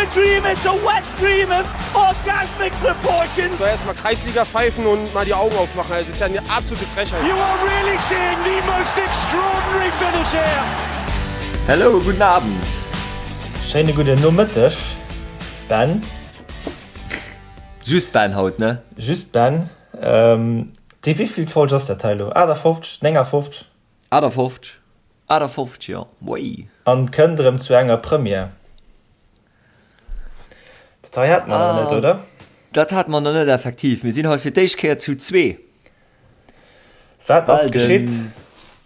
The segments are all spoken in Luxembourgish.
a dream, it's a wet dream of orgasmic proportions. So erstmal Kreisliga pfeifen und mal die Augen aufmachen. Das ist ja eine absolute Frechheit. You are really seeing the most extraordinary finish here. Hello, guten Abend. Schéine gudden Nomëtteg, Ben. Just Ben haut, ne? Just Ben. Déi wéivillt Folg ass dat hei elo? 58? 59? 58, 58, jo, wéi. An kënnt erëm zu enger Première. Dat hei hate mer nach net, oder? Dat hate mer nach net, effektiv. Mir sinn haut fir d'éischt Kéier zu zwee. Wat ass geschitt?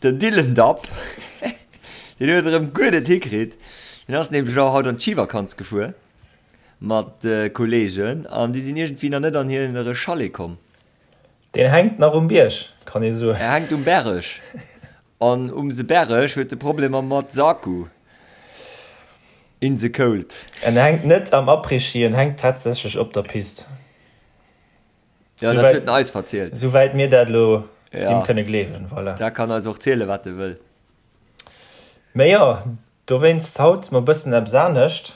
Den Dylan Dapp, deen huet erëm guer net hikritt. Deen ass nämlech elo haut an d'Schivakanz gefuer mat Kolleegen an déi sinn iergendwéi nach net an hire Chalet komm. Deen hänkt nach um Bierg, kann ee soen. Er hänkt um Berg. An um se Berg huet e Problemer mat s'Akku. In the cold. En hänkt net am Après-Ski, en hänkt tatsächlech op der Pist. Jo, dat huet en eis verzielt. Souwäit mir dat elo him kënne gleewen, voilà. Da kann eis och ziele wat e wëll. Mee jo, dowéinst haut mol bëssen eppes anescht.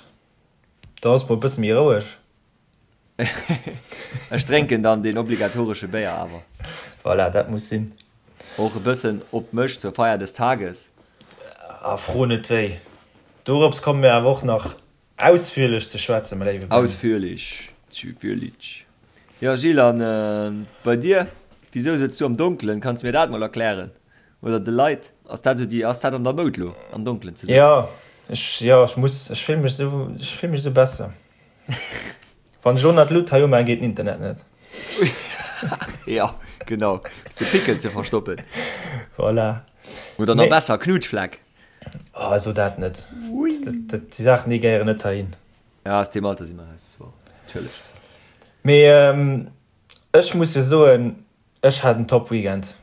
Da ass mol bësse méi roueg. Ech drénken dann deen obligatoresche Béier awer. Voilà, dat muss sinn. Och e bëssen op mech zur Feier des Tages. A fro net wéi. Dorops komme mir awer och nach ausführlech ze schwätzen, mäi léiwe Ben. Ausführlech, züführlich. Jo Gilles, an bei dir? Wisou sëtz du am Donkelen? Kanns mir dat mol erklären? Oder de Leit? Ass dat esou déi, ass dat an der Moud lo, am Donkelen ze sëtzen? Jo, ech, jo, ech muss, ech fill mech esou, ech fill mech esou besser. Wann ech elo nach d'Lut hei umaan, geet den Internet net. Jo, genau. Fir de Pickel ze verstoppen. Voilà. Oder nach besser, Knutschfleck. Oh, so dat net. Dat, déi Saachen, déi gehéieren net heihin. Ja, aus deem Alter si mer raus, das war natierlech. Mee ech muss jo soen, ech hat en top Weekend.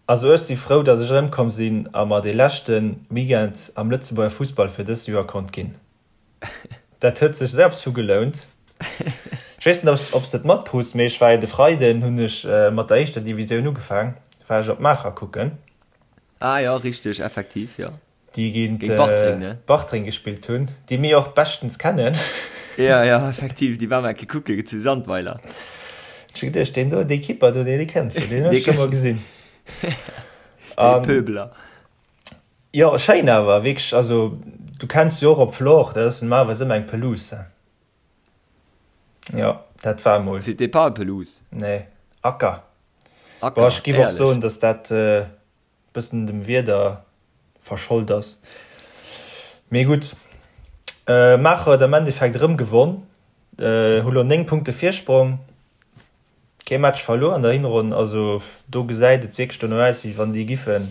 Also ech si frou, datt ech erëmkomm sinn a mer dee leschte Weekend am Lëtzebuerger Fussball fir dëst Joer konnt ginn. Dat huet sech selbst vu gelount. Ech weess net, ob s de et matkrus, mee ech war jo de Freiden, hunn ech mat der éischter Divisioun ugefaang, war ech op Maacher kucken. Ah jo, richteg, effektiv, jo. Déi géint Bartreng, ne? Bartreng gespillt hunn, déi mir och beschtens kennen. Jo, jo, effektiv, déi war mer eng Kéier kucke zu Sandweiler. Ech hu geduecht, deen do, dee Keeper do, dee kenns de, deen hues de scho mol gesinn. Dee Pöbeler. Jo schéin awer wierklech, also du kenns jo och op Flore, dat ass normalerweis ëmmer eng Pelouse. Jo dat war emol. C'était pas pelouse. Nee, Acker. Acker, Bon ech giff och soen, dass dat e bëssen dem Wieder verschold ass. Mee gutt, Maacher huet am Endeffekt erëm gewonn, hu lo 9 Punkte Virsprong. Kee Match verluer an der Hinronn, also do gesäit et wierklech dono aus, wéi wann déi giffen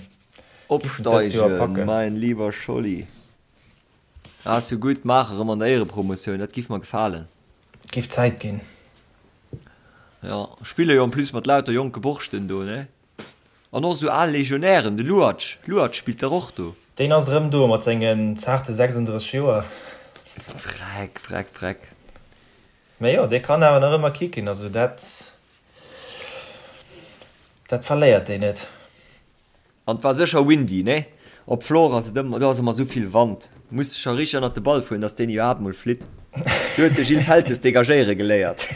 giffen dëst Joer Opsteigen, packen. mein lieber Scholli. Ass jo gutt, maach erëm an der Éierepromotioun, dat giff mer gefalen. Giff Zäit ginn. Jo, spille jo en plus mat lauter jonke Borschten do, ne? An och esou al Legionären, de Luacz, Luacz spillt dach och do. Deen ass erëm do mat sengen zaarte 36 Joer. Freck, freck, freck. Mä jo, dee kann awer nach ëmmer kicken, also dat, dat verléiert deen net. An et war sécher windy, nee? Op Floor ass et ëmmer, do ass ëmmer esou vill Wand, muss de scho richteg ënnert de Ball fueren, dass deen iwwerhaapt mol flitt. Do huet de Gilles Feltes dégagéiere geléiert.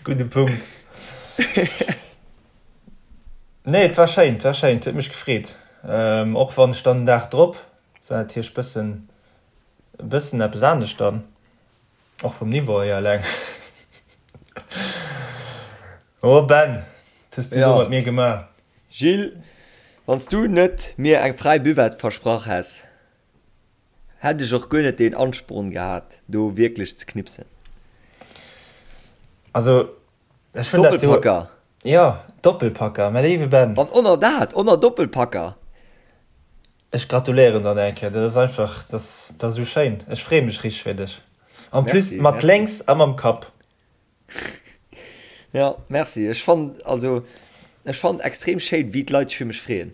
Gudde Punkt. Nee, et war schéin, et war schéin, et huet mech gefreet. Och wann ech dann den Dag drop war natierlech bëssen E bëssen eppes anescht dann, och vum Niveau hier eleng. Oh Ben, wat hues du do mat mir gemaach? Gilles, wann s du net mir eng fräi Buvette versprach häss, hätt ech och guer net deen Ansporn gehat, do wierklech ze knipsen. Also, ech hunn dat jo. Doppelpacker! Jo, Doppelpacker, mäi léiwe Ben. An oner dat, oner Doppelpacker! Ech gratuléieren der nach eng Kéier, dat ass einfach, dat ass, dat ass esou schéin. Ech freeë mech richteg fir dech. En plus mat lénks a mam Kapp. Jo, merci. Ech fannen, also ech fannen extrem schéin, wéi d'Leit sech fir mech freeën.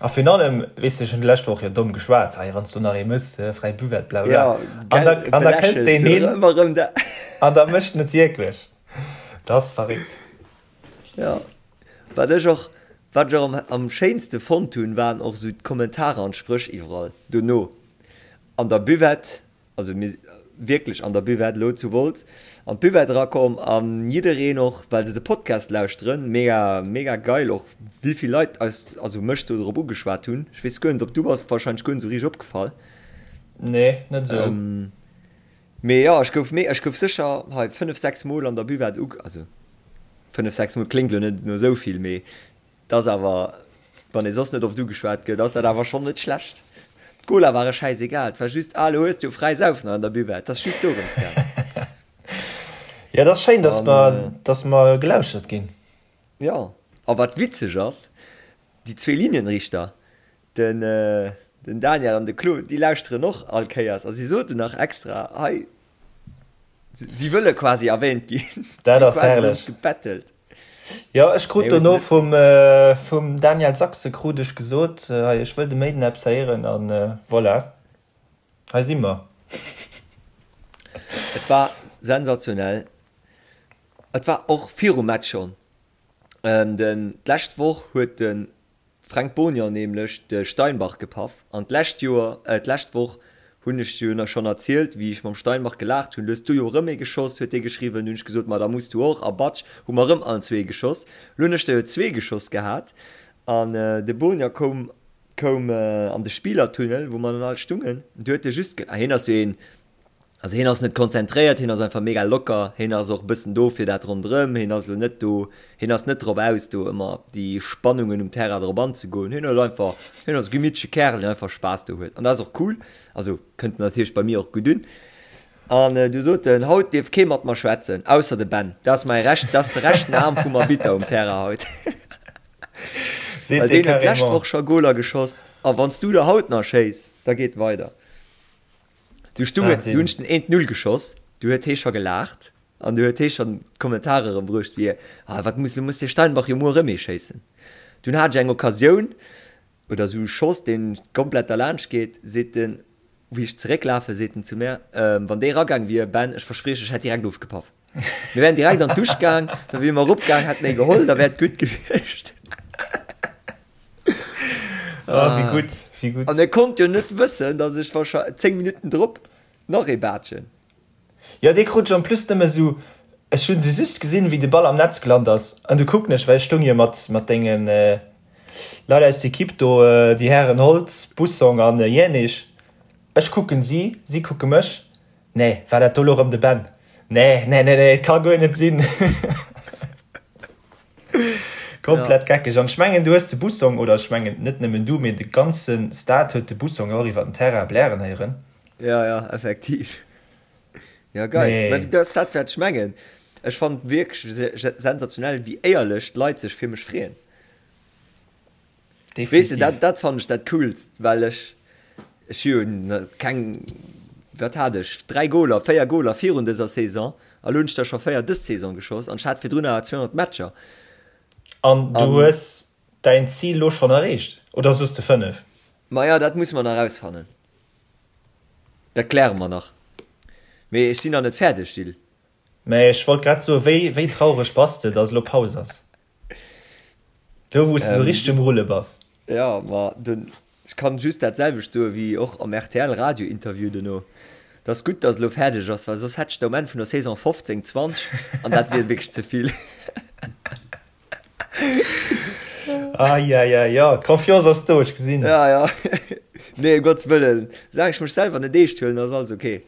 A virun allem, weess de, ech hunn d'lescht Woch jo domm geschwat, hei, wann s du nach ee mëss, fräi Buvette, bla bla. An da, an da kënnt deen hin an da mécht en et wierklech. Dat ass verréckt. Jo, wat ech och, wat ech och am, am schéinste fonnt hunn, waren och esou d'Kommentarer an d'Spréch iwwerall dono. an der Buvette, also mir wierklech an der Buvette elo zu Wolz, an d'Buvette erakomm an jiddereen och, well se de Podcast lauschteren, mega mega geil och wéivill Leit eis, also mech do drop ugeschwat hunn. Ech weess guer net ob du bass wahrscheinlech guer net esou richteg opgefall. Nee, net esou. Mee jo, ech gouf méi, ech gouf sécher hei 5, 6 Mol an der Buvette uge, also 5, 6 Mol kléngt elo net no esou vill, mee et ass awer, wann ee soss net oft ugeschwat gëtt, ass dat awer schonn net schlecht. D'Cola ware schäisegal, et war just, ah, elo hues du jo fräi Saufen an der Buvette, et ass just dorëms gaangen. Jo, et ass schéin, dass mer, dass mer gelauschtert ginn. Jo, a wat witzeg ass, déi zwee Linienrichter, Den den Daniel an de Claude, déi lauschteren och all Kéiers a si soten nach extra hei, si wëlle quasi erwähnt ginn. Dat ass herrlech. Gebettelt. Jo, ech krut dono vum vum Daniel Sachse krut ech gesot, hei ech wëll de Méiden eppes héieren an voilà, hei si mer. Et war sensationell. Et war och virum Match schonn. Den d'lescht Woch huet de Fränk Bonior nämlech de Steinbach gepaff an d'lescht Joer, äh d'lescht Woch hunn ech jo na schonn erzielt wéi ech mam Steinbach gelaacht hunn, du hues du jo erëm ee geschoss, huet dee geschriwwen, hunn ech gesot, ma da muss du och a batsch hu mer erëm allen zwee geschoss. Lo hunn ech der jo zwee geschoss gehat an de Bonior koum koum an de Spielertunnel wou mer dann all stungen, du huet e just ge, ah hien ass jo een Also hien ass net konzentréiert, hien ass einfach mega locker, hien ass och e bëssen do fir dat ronderëm, hien ass elo net do, hien ass net drop aus do ëmmer op déi Spannungen um Terrain drop anzegoen, hien huet einfach, hien ass e gemittleche Kärel deen einfach Spaass do huet an dat ass och cool, also kënnt natierlech bei mir och gutt un. An du sot en, haut dierf kee mat mer schwätzen, ausser de Ben, dat ass mäi recht, dat ass de rechten Aarm vum Arbitter um Terrain haut. Well deen huet d'lescht Woch scho Goler geschoss a wann s du der haut nach schéiss, da geet weider. Du stung et, du hunn ech den eent Null geschoss, du huet hee scho gelaacht an du huet hee schonn d'Kommentare erëm bruecht wéi, ah wat muss, du muss de Steinbach jo muer erëm ee schéissen. Dunn hat ech eng Occasioun oder esou e Schoss deen komplett derlaanscht geet, seet en, wéi ech zerécklafen, seet en zu mär, wann dee ragaang wier, Ben, ech versprieche, ech hätt direkt ofgepaff. Mir wären direkt an d'Dusch gaang, da wier mer eropgaang, hätten ee geholl, da wär et gutt gewiescht. Ah, wéi gutt, wéi gutt. An e konnt jo net wëssen, datt ech wahrscheinlech 10 Minutten drop nach ee baatschen. Jo, dee krut ech en plus nëmme sou, ech hunn se just gesinn, wéi de Ball am Netz gelant ass, an du kucken ech, well ech stoung jo mat, mat denge Leit aus der Equipe do, déi Hären Holtz, Bussong an Jänisch. Ech kucken si, si kucke mech. Nee, war dat do lo rëm de Ben? Nee, nee, nee, nee, et ka guer net sinn. Komplett ja. geckeg. An ech mengen, du hues de Bussong, oder ech mengen net nëmmen du, mee de ganze Stade huet de Bussong och iwwer den Terrain blären héieren. Ja, ja, effektiv. Ja, geil. Nee. Mä dat ass dat, wat ech mengen. Ech fannen wierklech sensationell, wéi éierlech d'Leit sech fir mech freeën. Weess de, dat, dat fannen ech dat Coolst, well ech, ech hu jo keng, wat hat ech, 3 Goler, 4 Goler virun dëser Saison, a lo hunn ech der scho 4 dës Saison geschoss an ech hat virdrun awer 200 Matcher. An du hues däin Zil lo schonn erreecht, oder soos de 5? Maja, dat musse mer nach erausfannen. Dat kläre mer nach. Mee ech sinn nach net fäerdeg, Gilles. Mä ech wollt grad soen, wéi, wéi traureg bass de, dass elo Paus ass? Do wou s de sou richteg um Rulle bass. Jo, ma den, ech kann just dat selwecht soe wéi och am rtl Radio Interview dono, Et ass gutt, datt elo fäerdeg ass, well soss hätt ech der um Enn vun der Saison 15, 20 an dat wier wierklech ze vill. Eieiei, jo, d'Confiance ass do, ech gesinn. Ja, ja. Nee, ëm Gottes Wëllen, soulaang ech mech selwer net eescht huelen, ass alles ok.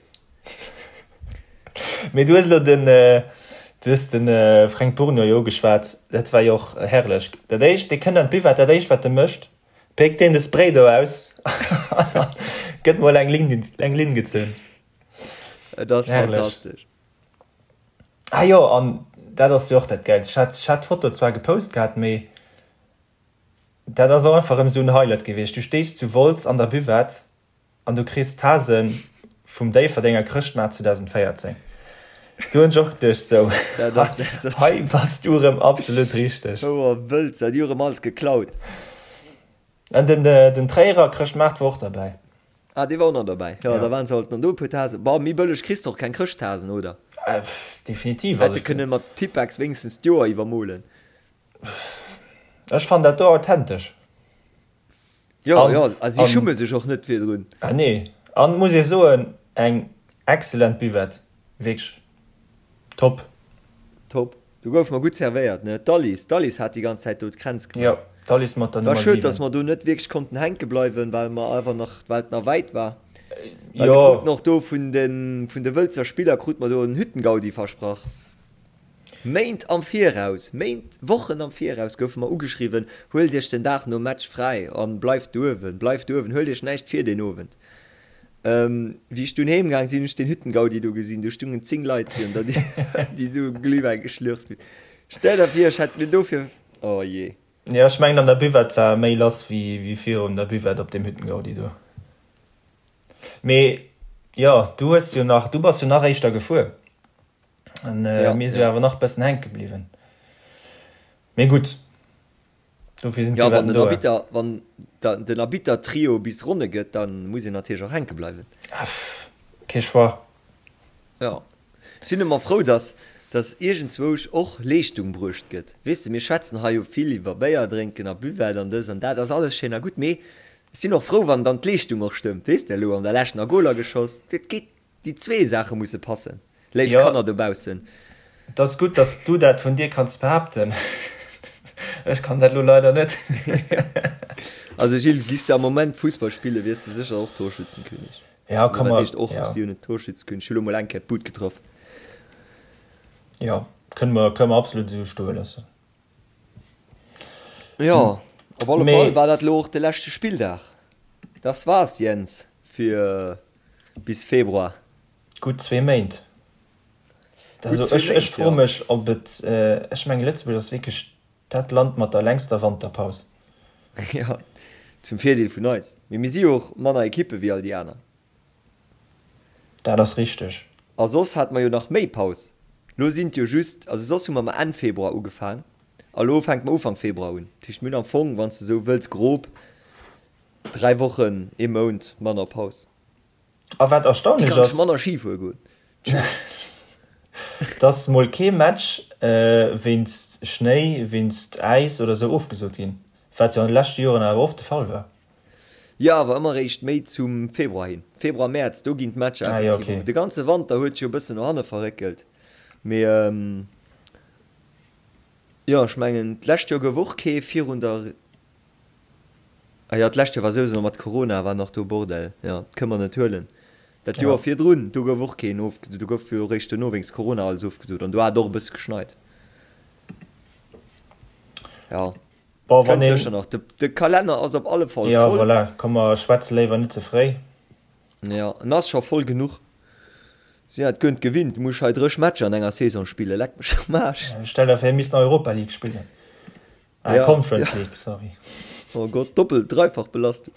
Mee du hues elo den, du hues de Fränk Bourgnon jo ugeschwat, dat war jo och herrlech. Dat éischt, dee kënnt an d'Buvette, dat éischt wat e mécht, péckt deen de Spray do aus an gëtt mol eng Linn, eng Linn gezunn. Et ass fantastesch. Ah jo, an dat ass jo och dat Gäilst, ech hat, ech hat d'Foto zwar gepost gehat, mee dat ass och einfach erëm esou en Highlight gewiescht. Du stees zu Wolz an der Buvette An du kriss d'Tasen vum Déifferdenger Chrëschtmaart 2014. Do hunn ech och geduecht, sou, hei bass du erëm absolut richteg. Houer wëlls, dat hu rëm alles geklaut. An den, den Tréierer Chrëschtmaart war och derbäi. Ah, dee war och nach derbäi. Jo, da waren se halt an do e puer Tasen. Bon, méi bëlleg kriss de och keng Chrëschttasen, oder? Definitiv. Hätte kënne mat Tippex wéinstens d'Joer iwwermolen. Ech fannen dat do authentesch. Jo, jo, a si schumme sech och net virdrun. Ah nee. An muss ee soen, eng excellent Buvette, wierklech top. Top. Do goufe mer gutt servéiert, ne? D'Alice, d'Alice hat déi ganz Zäit do d'Kränz gemaach. Jo, d'Alice mat der War Nummer schued, dass 7. mer do net wierklech konnten hänke bleiwen, well mer awer nach, well et nach wäit war. Well mir Jo. kruten och do vun de, vun de Wëlzer Spiller krute mer do en Hüttengaudi versprach. Méint am Viraus, Méint, Wochen am Viraus goufe mer ugeschriwwen, Huelt iech den Dag nom Match fräi an bleift douewen, bleift douewen, huelt iech näischt vir deen Owend. Wéi ech dunn heem gaang sinn, hunn ech den Hüttengaudi do gesinn, do stungen 10 Leit virun der Dier, déi do Glühwäin geschlürft hunn. Stell der vir, ech hätt mir dofir, oh jee. Jo, ech mengen an der Buvette war méi lass wéi virun der Buvette op deem Hüttengaudi do. Mee jo, du hues jo nach, du bass jo nach éischter gefuer an mir si jo awer nach bëssen hänke bliwwen. Mee gutt. Dofir sinn Ja, wann den Arbitter, wann den Arbitter-Trio bis Ronne gëtt, da muss een natierlech och hänke bleiwen. Kee Choix. Jo. Sinn ëmmer frou, dass, dass iergendzwousch och Leeschtung bruecht gëtt. Weess de, mir schwätzen hei jo vill iwwer Béier drénken a Buvette an dës an dat, ass alles schéin a gutt, mee ech sinn och frou, wann dann d'Leeschtung och stëmmt. Weess de, elo an der Lescht nach Goler geschoss, dat geet Déi zwee Saache musse passen, léif Jo, Kanner dobaussen. et ass gutt, dass du dat vun dir kanns behaapten. Ech kann dat elo leider net. Also Gilles, giss de am Moment Fussball spillen, wiers de sécher och Torschützenkönig. Ja, Also ka wat mer, heescht och, ja. ech si jo net Torschützekönig, ech hu lo mol eng Kéier d'Bud getraff. Jo, kënne mer, kënne mer absolut esou stoe loossen. Jo, op alle Mee. Fall war dat lo och de leschte Spilldag. Das war's, Jens, fir bis Februar. Gutt zwee Méint. Gutt Also zwee ech, ech Méint, froe jo. mech, ob et, ech mengen Lëtzebuerg ass wierklech dat Land mat der längster Wanterpaus. Jo, zum Virdeel vun eis. Mee mir si jo och manner Ekippe wéi all déi aner. Dat ass richteg. A soss hate mer jo nach méi Paus. Lo sinn et jo just, also soss hu mer mer Enn Februar ugefaang a lo fänke mer Ufank Februar un. Dat heescht mir hunn am Fong, wann s de esou wëlls, grob 3 Wochen, ee Mount manner Paus. A wat Déi erstaunlech kann ech ass, manner Ski fuere goen. dass mol kee Match wéinst Schnéi, wéinst Äis oder sou ofgesot ginn, wat jo an de leschte Joren awer oft de Fall war. Jo, awer ëmmer eréischt méi zum Februar hin. Februar, Mäerz, do ginn d'Matcher Ah jo, effektiv okay. of. De ganze Wanter huet sech jo e bëssen no hanne verréckelt. Mee jo, ech mengen, d'lescht Joer gouf och kee virun der, ah jo, d'lescht Joer war souwisou nach mat Corona, war nach do Bordell, jo, dat kënne mer net huelen. Dat Joer Ja. virdrun, do gouf och keen ofgesot, do gouf jo eréischt duerno wéinst Corona alles ofgesot an do hat et och e bësse geschneit. Jo. Bon, wann Kënnt een. sécher nach. De Kalenner ass op alle Fall Ja, voll. voilà, komm mer schwätze léiwer net ze fréi. Ja, en ass scho voll genuch. Si hat guer net gewinnt. Du muss hei dréch Matcher an enger Saison spillen. Leck mech am Aarsch. Stell der vir, mir missten Europa League spillen. Ah, Ja, Conference ja. League, sorry. Oh Gott, Doppel-, dreifach Belastung.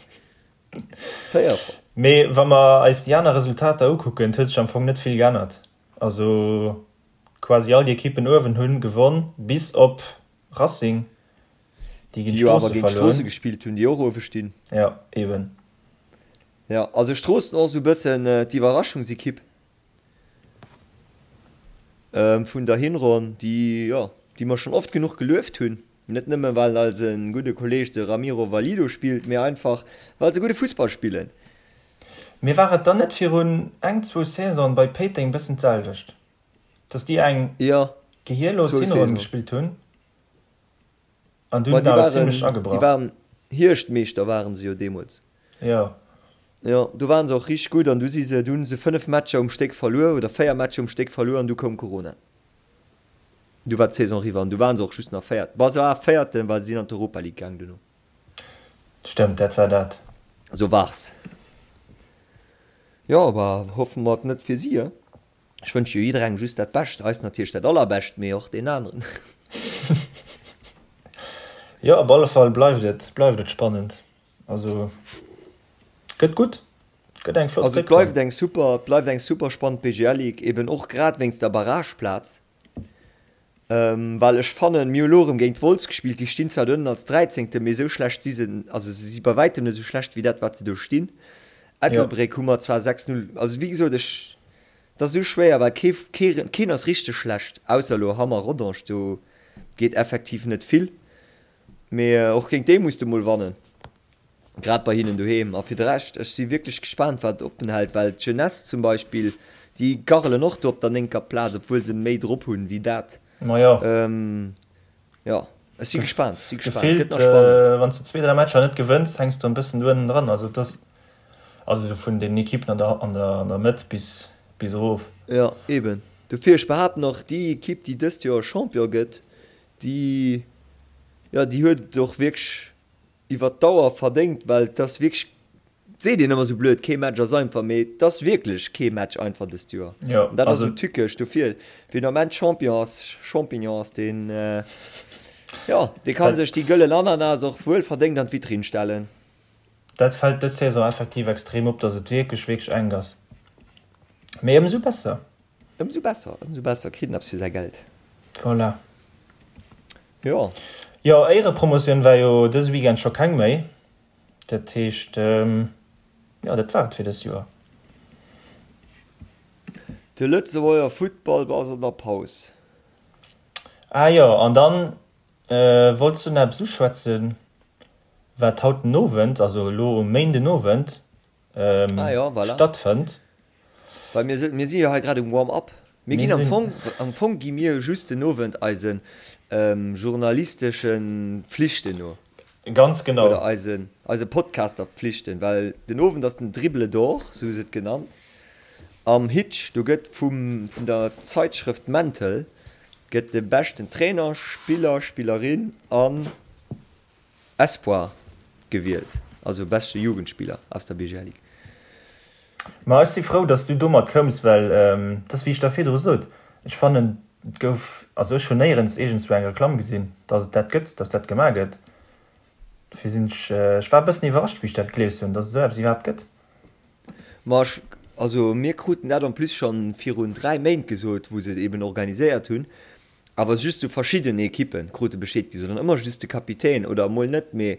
Véierfach. Mee wa mer eis déi aner Resultater ukucken, et huet sech am Fong net vill geännert. Also quasi all déi Ekippen uewen hunn gewonn, bis op Racing, déi géint Déi jo awer Stroosse géint Stroosse verluer. gespillt hunn, déi och uewe stinn. Jo, eben. Jo, also Stroossen och esou e bëssen d'Iwwerraschungsekipp vun der Hinronn, déi, jo, déi mer schonn oft genuch gelueft hunn. Net nëmme well eise gudde Kolleeg de Ramiro Valido spillt, mee einfach well se gudde Fussball spillen. Mee war et dann net virun eng, zwou Saisonen bei Péiteng bëssen d'selwecht? Dass déi eng Ja, gehierlos zwou Hinronn Saison. gespillt hunn an Ma dunn déi awer waren, zimlech déi agebrach. waren Hierschtmeeschter waren se jo deemools. Jo. Jo, do waren se och richteg gutt an du si se, du hunn se 5 Matcher um Stéck verluer oder 4 Matcher um Stéck verluer an du koum Corona. Du war d'Saison eriwwer an du waren se och just nach Véiert, bon se war Véierten, well se sinn an d'Europa League gaang duerno. Stëmmt, dat war dat. Sou wars. Jo, bah hoffe mer et net fir si, he? Ech wënsche jo jidderengem just dat Bescht, eis natierlech dat Allerbescht, mee och deenen aneren. Jo, op alle Fall bleift et, bleift et spannend. Also gëtt gutt, gëtt eng flott Also et Réckronn. bleift eng super, et bleift eng super spannend BGL Ligue, eben och grad wéinst der Barrageplaz. Well ech fannen, mir hu lo erëm géint Wolz gespillt, déi stinn zwar do ënnen als Dräizéngte, mee esou schlecht si se, also se si bei wäitem net esou schlecht wéi dat wat se do stinn. Ettelbréck hu mer zwar 6, 0, also wéi gesot, ech, et ass esou schwéier, well kee, kee, keen ass richteg schlecht, ausser elo Hamm a Rodange, do geet effektiv net vill, mee och géint déi muss de mol wannen. Grad bei hinnen doheem. A fir de Rescht, ech si wierklech gespaant, wat oppen hält, well d'Jeunesse zum Beispill, déi garrelen och do op der néngter Plaz, obwuel se méi drop hunn wéi dat. Majo. Jo, ech si gespaant, ech si gespaant. Gëtt nach spannend. Wann s de zwee, dräi Matcher net gewënns, hänks de e bëssen do ënnen dran. Also et ass, also vun den Ekippen an der, an der, an der Mëtt bis, bis erof. Jo, eben. Dofir, ech behaapten och, déi Ekipp, déi dëst Joer Champion gëtt, déi, jo, déi huet et och wierklech iwwer d'Dauer verdéngt, well et ass wierklech, et seet een ëmmer esou blöd, kee Match ass einfach, mee et ass wierklech kee Match einfach dëst Joer. Jo, An dat ass esou tückesch. Dofir, wien am Enn Champion ass, Champignon ass, deen, jo, dee ka sech déi gëllen Ananas och wuel verdéngt an d'Vitrinn stellen. Dat fält dës Saison effektiv extrem op, datt et wierklech, wierklech enk ass. Mee ëmsou besser. Ëmsou besser, ëmsou besser, kritt en eppes fir säi Geld. Voilà. Jo. Jo, Éierepromotioun war jo dëse Weekend scho keng méi. Dat heescht, jo, dat war et fir dëst Joer. De Lëtzebuerger Futtball ass an der Paus. Ah jo, an dann wollts du nach eppes uschwätzen, wat haut den Owend, also elo um Méindenowend, ah, ja, voilà. stattfënnt. Well mir, mir si jo hei grad um Warm-up. Mir ginn am Fong, am Fong gi mir just den Owend eisen ähm, journalistesche Pflichten no. Ganz genau. Oder eisen, eise Podcaster-Pflichten, well den Owend ass den Dribble d'Or, sou hu se et genannt, am Hitch. Do gëtt vum, vun der Zeitschrëft Mental gëtt de beschten Trainer, Spiller, Spillerin an Espoir gewielt, also beschte Jugendspieler aus der BGL Ligue. Ma ech si frou, dass du domat koums, well et ass wéi ech der virdru sot, ech fannen et gouf, also ech hunn néierens iergendswou eng Reklamm gesinn, dass et dat gëtt, dass dat gemaach gëtt. Dofir sinn ech, ech war e bëssen iwwerrascht wéi ech dat gelies hunn, dass et esou eppes iwwerhaapt gëtt. Ma ech, also mir kruten dat en plus schonn virun 3 Méint gesot, wou se et eben organiséiert hunn, Awer just sou verschidden Ekippen krute Bescheed gi, sondern ëmmer just de Kapitän oder emol net. Mee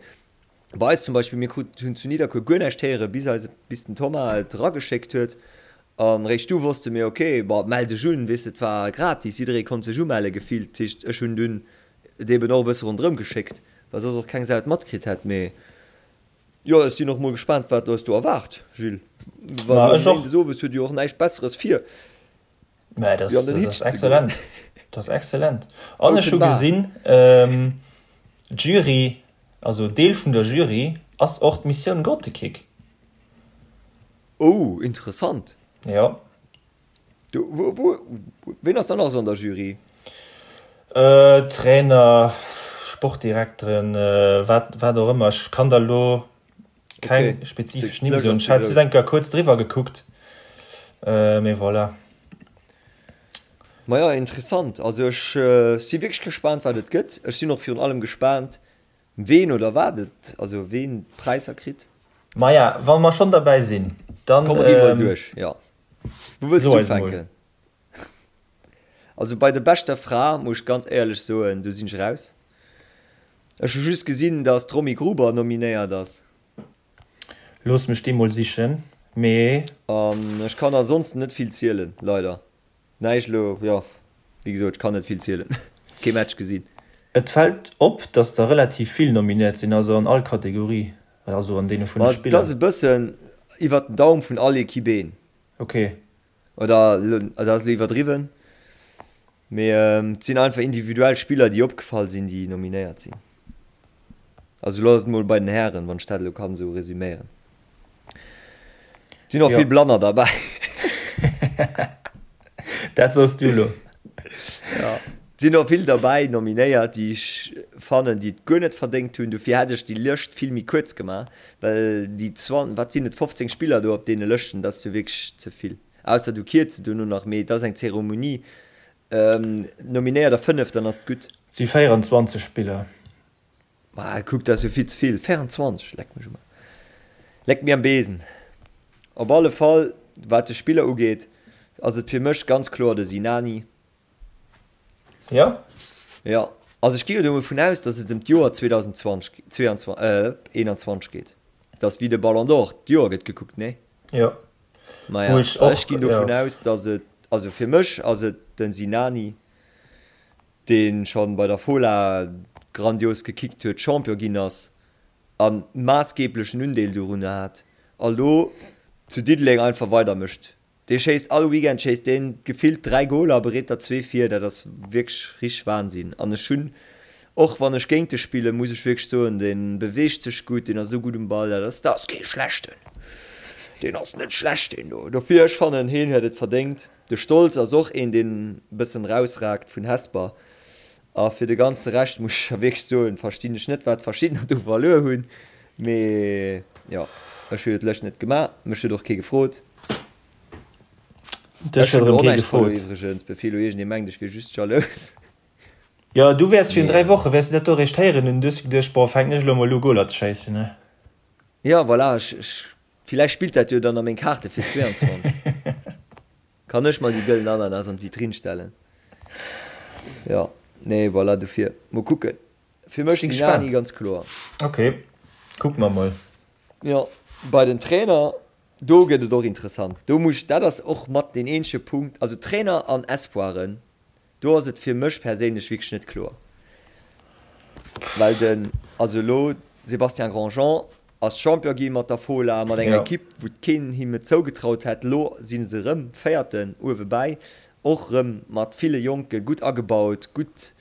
bei eis zum Beispill, mir krut, hunn zu Nidderkuer guer näischt héieren, bis eise, bis den Thomas et erageschéckt huet. An eréischt du wosste mir, ok, bon, mell dech un, weess de, et war gratis, jidderee konnt sech umelle gefillt. Dat heescht, ech hunn dunn et eben och e bësse ronderëm geschéckt, well soss och keng Sau et matkritt hätt. Mee jo, ech sinn och mol gespaant, wat eis do erwaart, Jules. Well esou méindes owes huet jo och näischt Besseres vir. Mä dat ass excellent. Dat ass excellent. An ech hu gesinn, d'Jury, also Deel vun der Jury ass och d'Missioun Grottekick. Oh, interessant. Jo. Du, wou, wou, ween ass dann nach esou an der Jury? Trainer, Sportdirekteren, wat, wat och ëmmer. Ech kann der elo Keng okay. spezifesch Nimm soen. Ech hat just eng Kéier kuerz driwwer gekuckt. Äh, mee voilà. Maja, interessant. Also ech äh, si wierklech gespaant, wat et gëtt. Ech sinn och virun allem gespaant, ween oder wat et, also ween d'Präisser kritt. Maja, wa mer schonn derbäi sinn, dann. Komm, mer gi mol ähm, duerch, ja. Wou wëlls du ufänken? Also bei der beschter Fra muss ech ganz éierlech soen, do sinn ech raus. Ech hu just gesinn, dass d'Romy Gruber nominéiert ass. Looss mech déi mol sichen, mee. An ech kann ansonsten net vill zielen, leider. Näischt elo, jo, wéi gesot, ech kann net vill zielen, kee Match gesinn. Et fält op, dass der relativ vill nominéiert sinn, also an all Kategorie, also an deene vun de Spiller. Et ass e bëssen iwwert den Daum vun all Equipe een. Ok. Oder dat ass elo iwwerdriwwen, mee et sinn einfach individuell Spiller, déi opgefall sinn, déi nominéiert sinn. Also elo ass et mol bei den Hären, wann ech dat elo kann esou resüméieren. Et sinn och vill Blanner derbäi. Dat soss du elo. Ja. Et sinn och vill derbäi nominéiert, déi ech fannen, déi et guer net verdéngt hunn. Dofir hätt ech déi Lëscht vill méi kuerz gemaach, well déi zwan, wat sinn et, 15 Spiller do op deene Lëschten, dat ass jo wierklech ze vill. Ausser du kierz se dono nach, mee et ass eng Zeremonie. Nominéier der 5, dann ass et gutt. Et si 24 Spiller. Ma kuck, dat ass jo vill ze vill. 24, leck mech um Aarsch. Leck mir am Besen. Op alle Fall, wat de Spiller ugeet, ass et fir mech ganz kloer de Sinani. Jo? Jo. Also ech gi jo dovun aus, datt et ëm d'Joer 2020, 22, äh, 21 geet. Dat ass wéi de Ballon d'Or, d'Joer gëtt gekuckt, nee? Jo. Maja, ech och, ech ginn dovun ja. aus, datt et, also fir mech ass et den Sinani, dee schonn bei der Fola grandios gekickt huet, Champion ginn ass. A maassgeeblechen Undeel dorunner hat. A lo zu Diddeleng einfach weidermécht. Dee schéisst all Weekend schéisst deen gefillt 3 Goler a bereet der zwee vir. Dat ass wierklech richteg Wahnsinn. An ech hunn, och wann ech géint e spillen, muss ech wierklech soen, dee beweegt sech gutt, deen ass esou gutt um Ball, dat ass, dat ass kee schlechten. Deen ass net schlecht deen do. Dofir, ech fannen, heen huet et verdéngt. De Stolz ass och een, deen e bëssen rausragt vun Hesper. A fir de ganze Rescht muss ech wierklech soen, verstinn ech net, wat verschiddener do verluer hunn. Mee jo, ech hu jo d'Lëscht net gemaach, mech huet och kee gefrot. Dech Ech huet hunn erëm och kee näischt verluer gefrot. iwwregens, bevir elo iergendee mengt, ech wier just jalous. Jo, du wäers virun Mee 3 Woche wäers du dat do eréischt héieren hunn, du hues geduecht, boah, fänken ech elo emol u Goler ze schéissen, ne? jo, voilà, ech, ech, villäicht spillt dat jo dann a meng Kaarte fir 22. Kann ech mer déi gëllen Ananas an d'Vitrinn stellen? Jo, nee, voilà, dofir, mol kucken. Fir mech Sinn Sinani gespaant. ganz kloer. Ok, kucke mer mol. Jo, bei den Trainer, do gëtt et och interessant. Do muss, dat ass och mat deen eenzege Punkt, also Trainer an Espoiren, do ass et fir mech perséinlech wierklech net kloer. Well den, also elo Sébastien Grandjean ass Champion gi mat der Fola, mat enger Jo. Ekipp, wou keen him et zougetraut hätt. Elo si se erëm Véierten uewe bäi, och erëm mat ville Jonken, gutt agebaut, gutt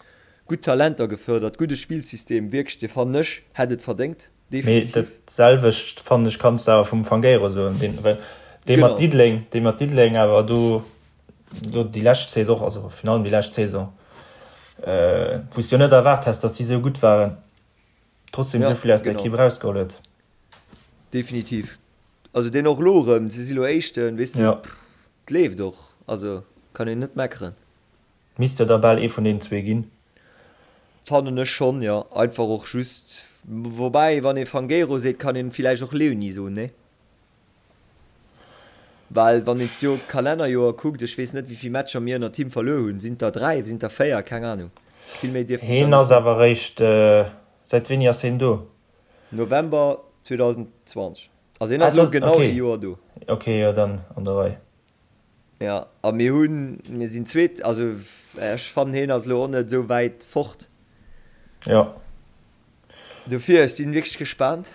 Gutt Talenter gefördert, gudde Spillsystem, wierklech, dee fannen ech hätt et verdéngt, Mee definitiv. dat selwecht fannen ech kanns de awer vum Fangueiro soen, deen well dee mat Genau. Diddeleng, dee mat Diddeleng awer do do déi lescht Saison, also virun allem déi lescht Saison, wou s de jo net erwaart häss, datt déi esou gutt waren, trotzdem Ja, esou vill aus der genau. Ekipp erausgeholl huet. Definitiv. Also deen och elo erëm, se si lo Éischten, weess de, Ja. 't leeft och, also kann een net meckeren. Misst jo da bal ee vun deenen zwee ginn. Fannen ech schonn, jo. Einfach och just, woubäi wann ee Fangueiro seet, kann een villäicht och Leoni soen, nee? Well wann een d'Joer, d'Kalennerjoer kuckt, ech weess net wéivill Matcher mir ënnert him verluer hunn, sinn et der 3, sinn et der 4, keng Ahnung. Vill méi dierften et der Heen net ass sinn. awer eréischt, säit wéini ass heen do? November 2020, also hien Ah, ass elo dat, genau ee okay. Joer do. Okay, jo dann an der Rei. Jo, a mir hunn, mir sinn Zweet, also ech fannen hien ass elo och net esou wäit fort. Jo. Dofir, ech sinn wierklech gespaant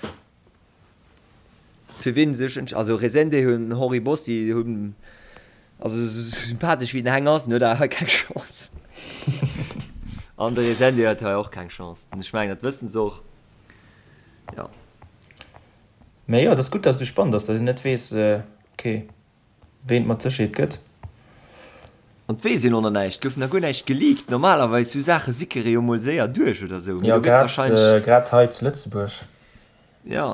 fir wien sech entsch, also Resende hunn, Henri Bossi hunn, also esou sympathesch wéi den Heng ass, en huet awer hei keng Chance. An de Resende huet hei och keng Chance, ech mengen dat wëssen se och, jo. Mee jo, et ass gutt, dass et esou spannend ass, dass een net weess, okay. Ween et mat Sécherheet gëtt. An et weess een och nach näischt, et gouf nach guer näischt geleakt. Normalerweis sou Saache sickere jo mol séier duerch oder sou, mee Jo, do gëtt grad, wahrscheinlech. grad hei zu Lëtzebuerg. Jo,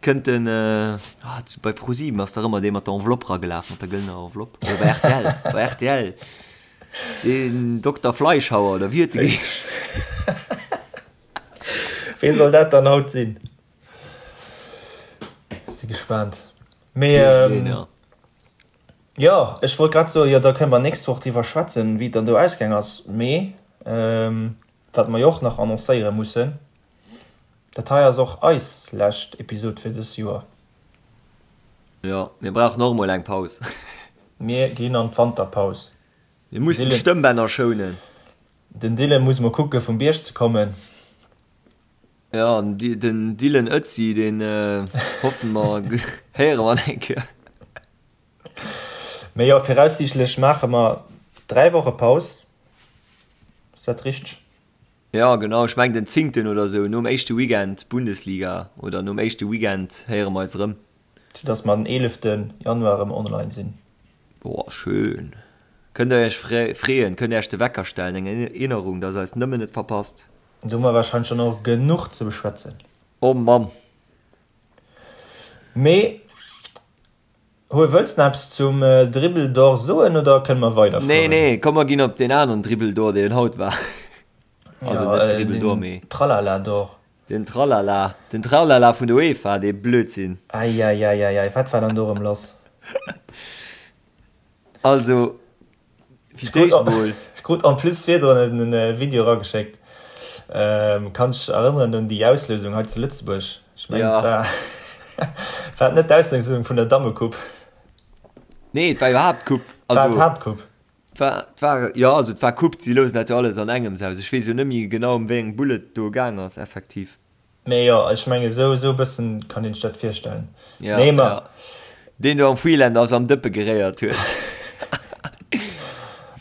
kënnt den, ah, bei ProSieben ass dach ëmmer dee mat der Enveloppe ragelaf, mat der gëllener Enveloppe, oder bei rtl, bei rtl, deen Dokter Fleischhauer oder wéi huet de geheescht? Wee soll dat dann haut sinn? Si gespaant. Mee ähm, jo, ech wollt grad soen, jo da kënne mer nächst Woch driwwer schwätzen, wéi et dann do ausgaang ass. Mee ähm, wat mer jo och nach annoncéiere mussen, dat hei ass och eis lescht Episod fir dës Joer. Jo, mir brauchen och emol eng Paus. Mir ginn an d'Wanterpaus. Mir mussen d'Stëmmbänner schounen. Den Dylan muss mol kucke vum Bierg ze kommen. Jo, den Dylan Ötzi, deen hoffen mer héiere mer nach eng Kéier. Mee jo, viraussiichtlech maache mer 3 Woche Paus, ass dat richteg? Jo, genau, ech mengen den zéngten oder esou, nom éischte Weekend Bundesliga oder nom éischte Weekend héiere mer eis erëm. Sou dass mer den 11 Januar erëm online sinn. Boah, schön. Kënnt der iech freeën, kënnt iech de Wecker stellen, eng Erinnerung, dass eis nëmmen net verpasst. Do hu mer wahrscheinlech dann och genuch ze beschwätzen. Oh Mamm! Mee Hue, wëlls nach eppes zum Dribble d'Or soen oder kënne mer Nee, weiderfueren? nee, komm mer ginn op deen aneren Dribble d'Or, deen haut war. Also Ja, net äh, Dribble d'Or, den mee Tralala d'Or. den Tralala, den Tralala vun der UEFA, dee Blödsinn. Eieieiei, wat war dann do erëm lass? Also, fir d'éischt mol. Ech krut en plus virdrun e Video erageschéckt. Kanns dech erënneren un déi Auslousung hei zu Lëtzebuerg? Ech mengen, et war, war et net d'Auslousung vun der Dammecoupe? Nee, et war iwwerhaapt d'Coupe. War et d'Haaptcoupe? Et war, et war, jo, also et war Coupe, si lousen dat jo alles an engems aus. Ech weess jo net méi genau, ëm wéi eng Bull et do gaang ass, effektiv. Mee jo, ech mengen esou esou e bëssen kann een sech dat virstellen. Ja, nee, ma. Ja. Deen do am Freelander ass am Dëppe geréiert huet.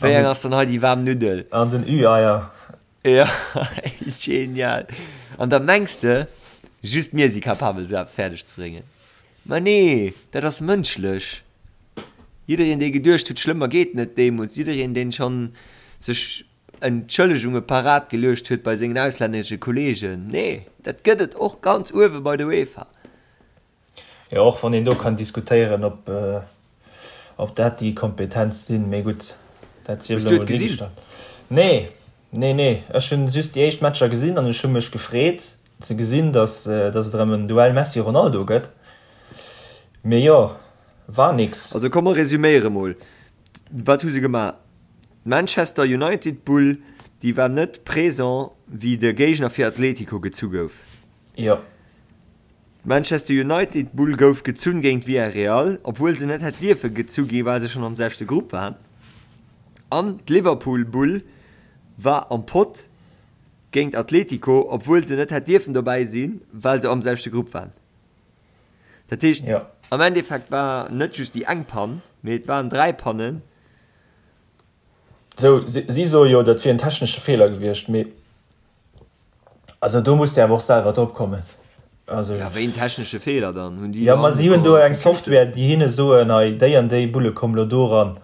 Wéi eng ass dann hei déi waarm Nuddel? An den Ü-Eier. Ja, genial. An da mengs de, just mir si capabel esou eppes fäerdeg ze bréngen. Ma nee, dat ass mënschlech. Jiddereen dee geduecht huet, schlëmmer geet net deemools, jiddereen deen schonn sech Entschëllegunge parat geluecht huet bei sengen auslännesche Kollegen. Nee, dat gëtt et och ganz uewe bei der UEFA. Jo, och wann een do kann diskutéieren, ob, ob dat déi Kompetenz sinn, mee gutt, dat sief elo mol duergestallt. Nee, nee, nee, ech hunn just déi éischt Matcher gesinn an ech hu mech gefreet ze gesinn, datt, datt et erëm en Duell Messi-Ronaldo gëtt. Mee jo, war nix. Also komm mer resüméiere mol, Wat hu se gemaach? D'Manchester United Bull, déi war net présent wéi de Géigner fir Atletico gezu gouf. Jo. D'Manchester United Bull gouf gezunn géint Villarreal, obwuel se net hätt dierfe gezu gi well se schonn am selwechte Grupp waren. An d'Liverpool Bull war am Pott géint Atletico, obwuel se net hätt dierfen dobäi sinn, well se am selwechte Grupp waren. Dat heescht, am Endeffekt war net just déi eng Pann, mee et waren 3 Pannen. Sou, si soe jo, dat wier en technesche Feeler gewiescht, mee also do muss de awer och selwer drop kommen. Also, ja, wéi en technesche Feeler dann? Hunn déi jo, ma si hunn do eng Software, déi hinne soen, hei déi an déi Bulle kommen elo do eran.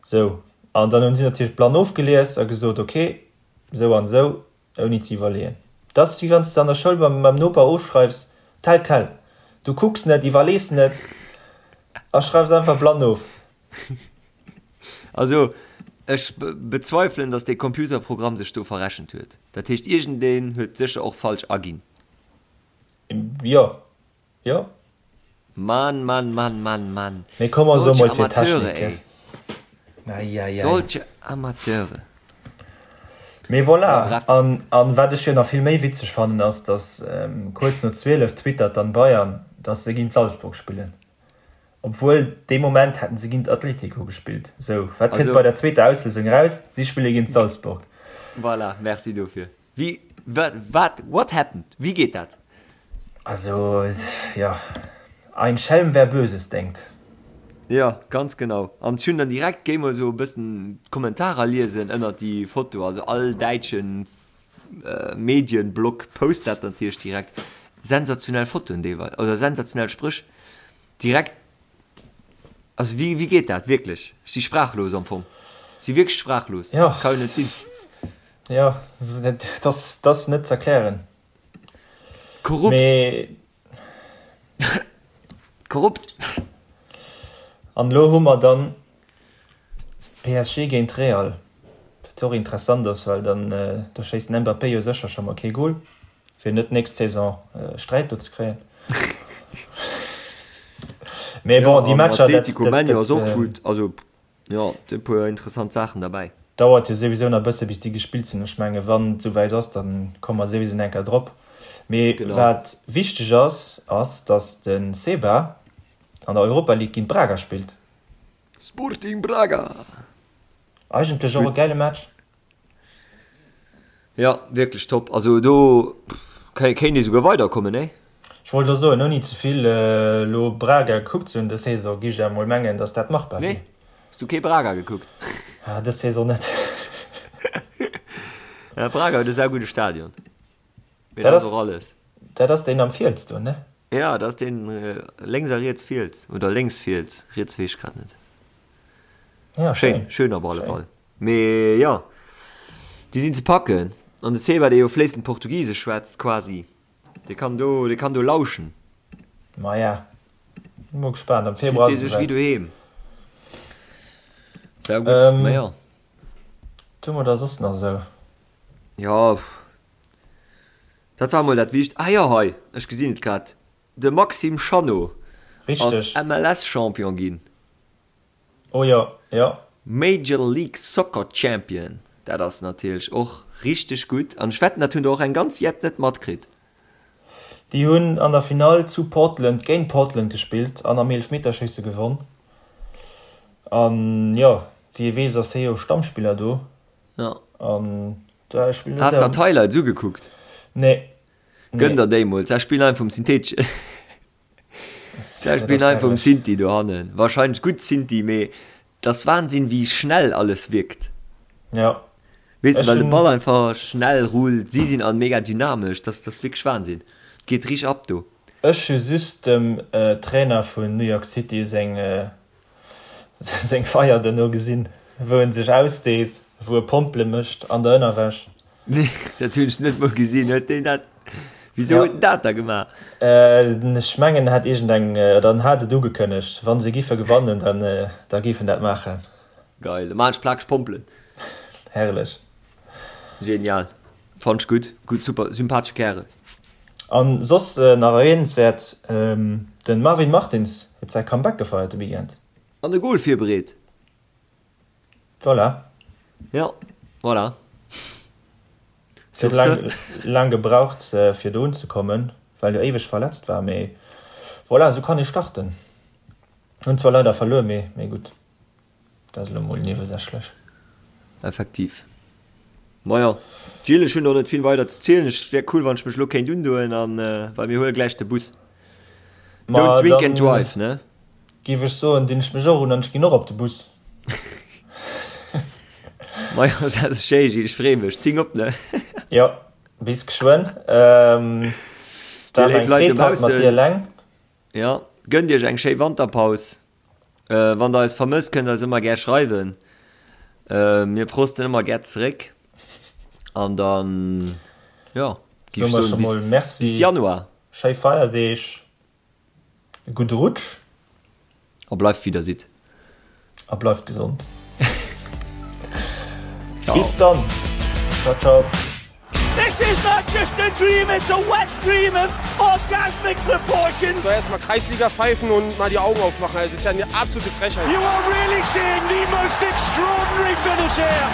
Sou, an dann hunn si natierlech blann ofgelies a gesot, okay, sou an esou, ouni ze iwwerleeën. Dat ass wéi wann s de an der Schoul beim beim Noper ofschreifs, tel quel. Du kucks net, iwwerlees net a schreifs einfach blann of. Also ech bezweifelen, datt dee Computerprogramm sech do verrechent huet. Dat heescht iergendeen huet sécher och falsch aginn. Jo, jo. Mann, Mann, Mann, Mann, Mann. Mee komm mer soe mol fir Technik, ey. Eieiei. Solche Amateure. Mee voilà, an, an wat ech jo nach vill méi witzeg fannen ass, datt kuerz no 12 twittert dann Bayern, datt se géint Salzburg spillen. Obwuel dee Moment hätten se géint Atletico gespillt. Sou, wat kënnt bei der zweeter Auslousung eraus? Si spille géint Salzburg. Voilà, merci dofir. Wéi, wat, wat, what happened? Wéi geet dat? Also, jo, ein Schelm wer Böses denkt. Jo, ganz genau. An ech hunn dann direkt, géi mol esou e bëssen d'Kommentarer liesen ënnert déi Foto, also all däitschen Medienblog post dat natierlech direkt. Sensationell Fotoen deelweis, oder sensationell Spréch. Direkt, also wéi, wéi geet dat wierklech? Ech si sprachlos am Fong. Ech si wierklech sprachlos. Jo. Ka jo net sinn. Jo, dat ass, dat ass net z'erklären. Korrupt. Mee. Korrupt. An elo hu mer dann PSG géint Real, wat och interessant ass, well dann do schéisst den Mbappé jo sécher scho mol kee Gol. Fir net nächst Saison Sträit do ze kréien. Mee bon, déi Matcher, dat, Atletico Manu ass och gutt. Also jo, et sinn e puer interessant Saachen derbäi. Dauert jo souwisou nach e bësse bis déi gespillt sinn. Ech menge wann et souwäit ass, da komme mer souwisou nach eng Kéier drop. Mee wat wichteg ass, ass datt de Seba an der Europa League géint Braga spillt. Sporting Braga! Eigentlech och e gäile Match. Jo, wierklech top. Also do kéint ee souguer weiderkommen, nee? Ech wollt elo soen, ouni ze vill elo Braga gekuckt ze hunn dës Saison, géif ech awer mol mengen, datt dat machbar wier. Nee? Hues du kee Braga gekuckt? Ah, dës Saison net. Ja, Braga huet e saugudde Stadion. Mee dat ass och alles. Dat ass deen am Fiels do, ne? Ja, dat ass deen lénks a riets Fiels. Oder lénks Fiels, riets weess ech grad net. Ja, schéin. Schéin op alle Fall. Mee jo, déi sinn ze packen. An de Seba, dee jo fléissend Portugisesch schwätzt, quasi, dee kann do, dee kann do lauschen. Maja, mol gespaant. Am Februar ass et esouwäit. Fillt dee sech wéi doheem. Sau gutt, ma jo. Wat hu mer da soss nach esou? Jo, dat war mol dat Wicht. Ah jo, hei, ech gesinn et grad, de Maxime Chanot ass MLS-Champion ginn. Oh jo, jo. Major League Soccer Champion, dat ass natierlech och richteg gutt an ech wetten dat hunn der och eng ganz jett net matkritt. Déi hunn an der Finall zu Portland géint Portland gespillt an am Eelefmeterschéisse gewonn. An jo, wéi ee weess ass hie jo Stammspiller do. Jo. An da spillt Has der d'Highlights ugekuckt? Nee. Gönn der déi mol. Ze spillen einfach um Syntheteschen. Ze spillen einfach um Synthi dohannen. Wahrscheinlech gutt Synthi, mee 't ass Wahnsinn wéi schnell alles wierkt. Ja. Weess de, well de Ball einfach schnell rullt, si sinn all mega dynamesch, dat ass wierklech Wahnsinn. Et geet richteg ab do. Ech hu just dem Trainer vun New York City seng seng Feier duerno gesinn, wou en sech ausdeet, wou e Pompele mécht an der Ënnerwäsch. Nee, dat hunn ech net mol gesinn. Huet deen dat, wisou huet en dat da gemaach? Ech mengen en hat iergend eng, oder en hat et ugekënnegt, wa se giffe gewannen, dann da géif en dat maachen. Geil, da maan ech plakeg Pompelen. Herrlech. Genial, fannt ech gutt, gutt, super, sympathesche Kärel. An soss nach erwähnenswäert, den Marvin Martins huet säi Comeback gefeiert de Weekend. An e Goal virbereet. Voilà. Jo, voilà. Huet laang, laang gebraucht fir do unzekommen, well jo éiweg verletzt war, mee voilà, esou kann ee starten. Hunn zwar leider verluer, mee, mee gutt, dat ass elo mol niewesächlech. Effektiv. Majo, Gilles, ech hunn och net vill weider ze zielen. Et wär cool, wann ech mech elo kéint undoen an, well mir huele gläich de Bus. Don't drink and drive, ne? Géif ech soen, dinn ech mech och un an ech ginn och op de Bus. Majo, dat ass schéi, Gilles, ech freeë mech. Zing op, ne? Jo, bis geschwënn. Dir léif Leit dobaussen. Mat dir eleng. Jo, gënnt iech eng schéi Wanterpaus. Wann der eis vermësst, kënnt der eis ëmmer gär schreiwen. Mir prosten ëmmer gär zeréck. An dann, jo, géif ech soen, bis, bis Januar. Schéi Feierdeeg, e gudde Rutsch. A bleift wéi der sidd. A bleift gesond. Bis dann. Ciao, ciao. This is not just a dream, it's a wet dream of orgasmic proportions. So erstmal Kreisliga pfeifen und mal die Augen aufmachen. Das ist ja eine absolute Frechheit. You are really seeing the most extraordinary finish here.